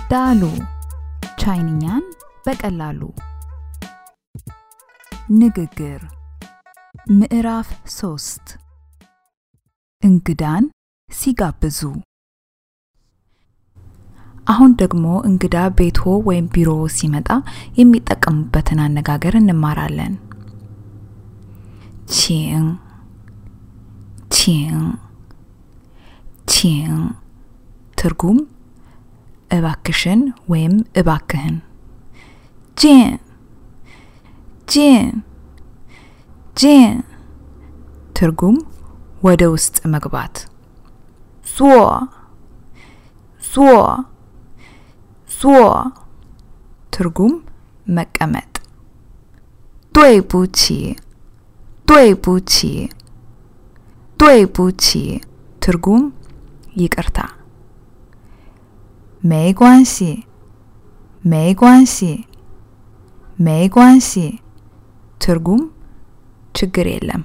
ዳሉ ቻይንኛን በቀላሉ ንግግር ምዕራፍ 3 እንግዳን ሲጋብዙ አሁን ደግሞ እንግዳ ቤቶ ወይም ቢሮ ሲመጣ የሚጠቀሙበትን አነጋገር እንማራለን ቺን ትርጉም እባክሽን ወይም እባክህን ጂን ትርጉም ወደ ውስጥ መግባት ዞ ትርጉም መቀመጥ ዱይ ቡቺ ትርጉም ይቅርታ没关系ትርጉም ችግር የለም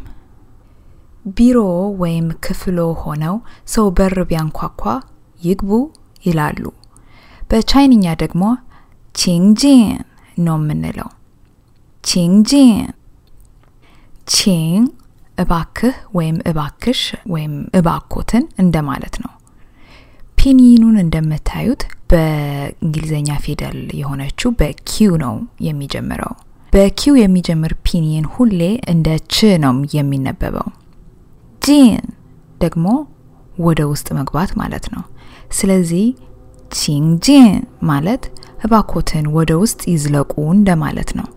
ቢሮ ወይም ክፍሎ ሆነው ሰው በር ቢያንኳኳ ይግቡ ይላሉ በቻይንኛ ደግሞ ቺንጂን ነው የምንለው ቺን እባክህ ወይም እባክሽ ወይም እባኮትን እንደማለት ነው ፒኒኑን እንደምታዩት በእንግሊዘኛ ፊደል የሆነችው በኪው ነው የሚጀምረው በኪው የሚጀምር ፒኒን ሁሌ እንደ ች ነው የሚነበበው ጂን ደግሞ ወደ ውስጥ መግባት ማለት ነው ስለዚህ ቺንጂን ማለት እባኮትን ወደ ውስጥ ይዝለቁ እንደማለት ነው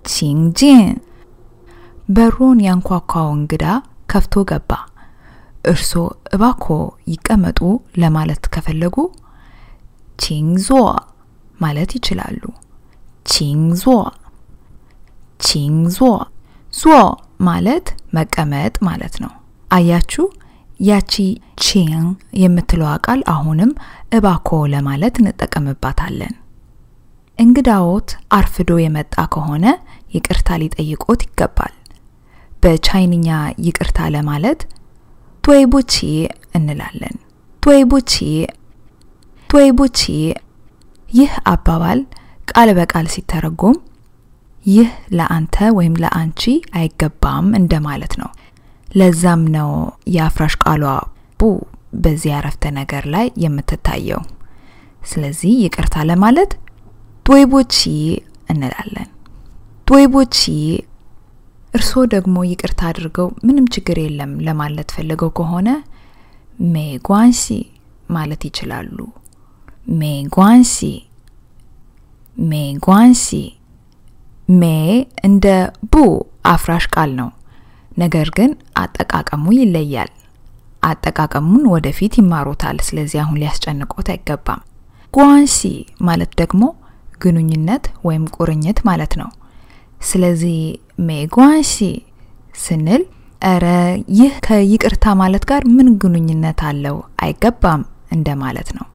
ቺንጂን በሩን ያንኳኳው እንግዳ ከፍቶ ገባ እርሶ እባኮ ይቀመጡ ለማለት ከፈለጉ ቺንዞ ማለት ይችላሉ ቺንዞ ማለት መቀመጥ ማለት ነው አያችሁ ያቺ ቺን የምትለው ቃል አሁንም እባኮ ለማለት እንጠቀምባታለን እንግዳዎት አርፍዶ የመጣ ከሆነ ይቅርታ ሊጠይቆት ይገባል በቻይንኛ ይቅርታ ለማለት ዱይ ቡቺ እንላለን ዱይ ቡቺ ይህ አባባል ቃል በቃል ሲተረጎም ይህ ለአንተ ወይም ለአንቺ አይገባም እንደማለት ነው ለዛም ነው ያፍራሽ ቃሏ ቡ በዚህ አረፍተ ነገር ላይ የምትታየው ስለዚህ ይቅርታ ለማለት ዱይ ቡቺ እንላለን ዱይ ቡቺ እርሶ ደግሞ ይቅርታ አድርገው ምንም ችግር የለም ለማለት ፈልገው ከሆነ ሜጓንሲ ማለት ይችላሉ ሜጓንሲ ሜ እንደ ቡ አፍራሽ ቃል ነው ነገር ግን አጠቃቀሙ ይለያል አጠቃቀሙን ወደፊት ይማሩታል ስለዚህ አሁን ሊያስጨንቆት አይገባም ጓንሲ ማለት ደግሞ ግንኙነት ወይም ቁርኝት ማለት ነው ስለዚህ ሜጓንሲ ስንል አረ ይህ ከይቅርታ ማለት ጋር ምን ግንኙነት አለው አይገባም እንደማለት ነው